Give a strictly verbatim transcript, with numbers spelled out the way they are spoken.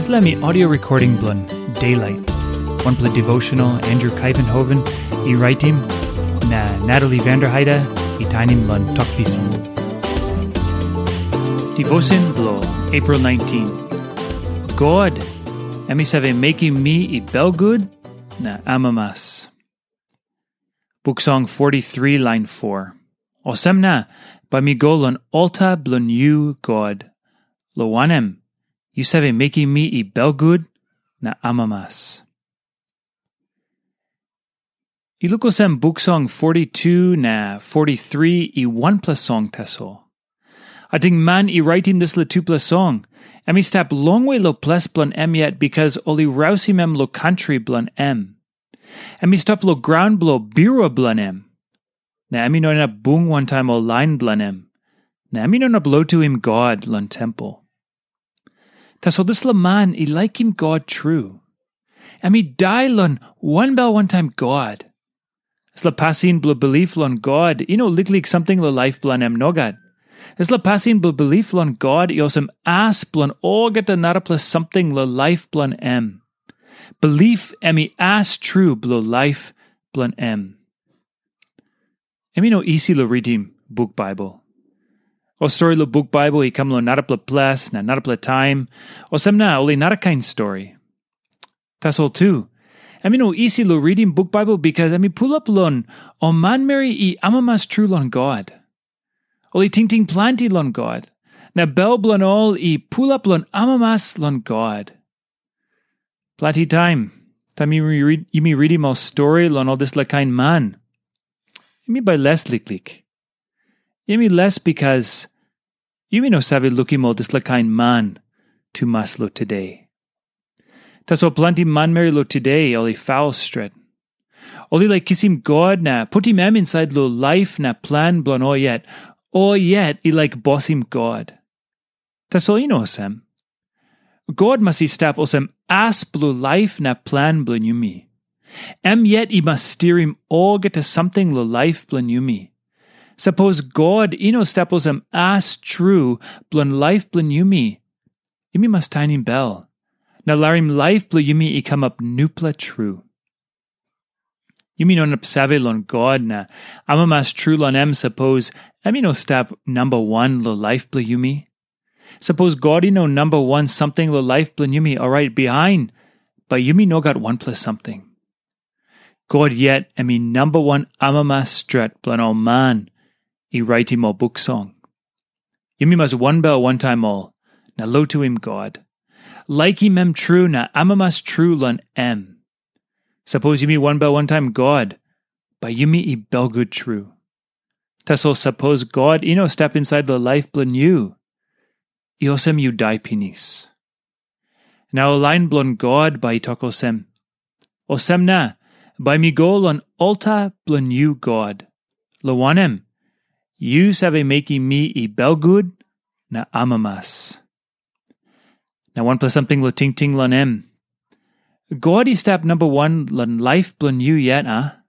Dispela mi audio recording bilong Daylight, wanpela devotional Andrew Kaivenhoven i raitim, na Natalie Vanderheide i tainim long Tok Pisin. Devotion bilong April nineteen. God, em i save mekim mi i belgut na amamas. Buk Song forty-three lain four. Olsem na, bai mi go long alta bilong yu, God, long wanem, yu save mekim mi i belgut na amamas. I luk olsem Buk Song forty-two na forty-three i wanpela song tasol. Ating man i raitim dispela tupela song, em i stap longwe long ples bilong em yet, bikas ol i rausim em long kantri bilong em. Em i stap long graun bilong birua bilong em, na em i no inap bung wantaim ol lain bilong em, na em i no inap lotuim God long tempel. Tasol dispela man i laikim God tru. Em i dai long wanbel wantaim God. Dispela pasin bilong bilip long God i no liklik samting long laip bilong em, nogat. Dispela pasin bilong bilip long God i olsem as bilong olgeta narapela samting long laip bilong em. Bilip em i as tru bilong laip bilong em. Em i no isi long ritim buk Baibel. Ol stori long buk Baibel i kam long narapela ples na narapela taim, olsem na ol i narakain stori. Tasol tu, em i no isi long ritim buk Baibel, bikas em i pulap long ol manmeri i amamas tru long God. Ol i tingting planti long God, na bel bilong ol i pulap long amamas long God. Planti taim, taim yumi rid-, yumi ritim ol stori long ol dispela kain man, yumi bai les liklik. Yumi les bikas yumi no save lukim ol dispela kain man tumas long tude. Tasol planti manmeri long tude ol i faul stret. Ol i laik kisim God na putim em insait long laip na plan bilong ol yet. Ol yet i laik bosim God. Tasol i no olsem. God mas i stap olsem as bilong laip na plan bilong yumi. Em yet i mas stirim olgeta samting long laip bilong yumi. Sapos God i no stap olsem as tru bilong laip bilong yumi, yumi mas tainim bel, na larim laip bilong yumi i kamap nupela tru. Yumi no inap save long God na amamas tru long em, sapos em i no stap namba wan long laip bilong yumi. Sapos God i no namba wan samting long laip bilong yumi, orait bihain, bai yumi no gat wanpela samting. God yet em i namba wan amamas stret bilong ol man i raitim ol buk song. Yumi mas wanbel wantaim ol, na lotuim God. Laikim em tru na amamas tru long em. Sapos yumi wanbel wantaim God, bai yumi i belgut tru. Tasol sapos God i no stap insait long laip bilong yu, i olsem yu dai pinis. Na ol lain bilong God bai i tok olsem, "Olsem na, bai mi go long alta bilong yu, God, long wanem, yu save mekim mi i belgut na amamas." Na wanpela samting long tingting long em. God i stap namba wan long laip bilong yu yet, a?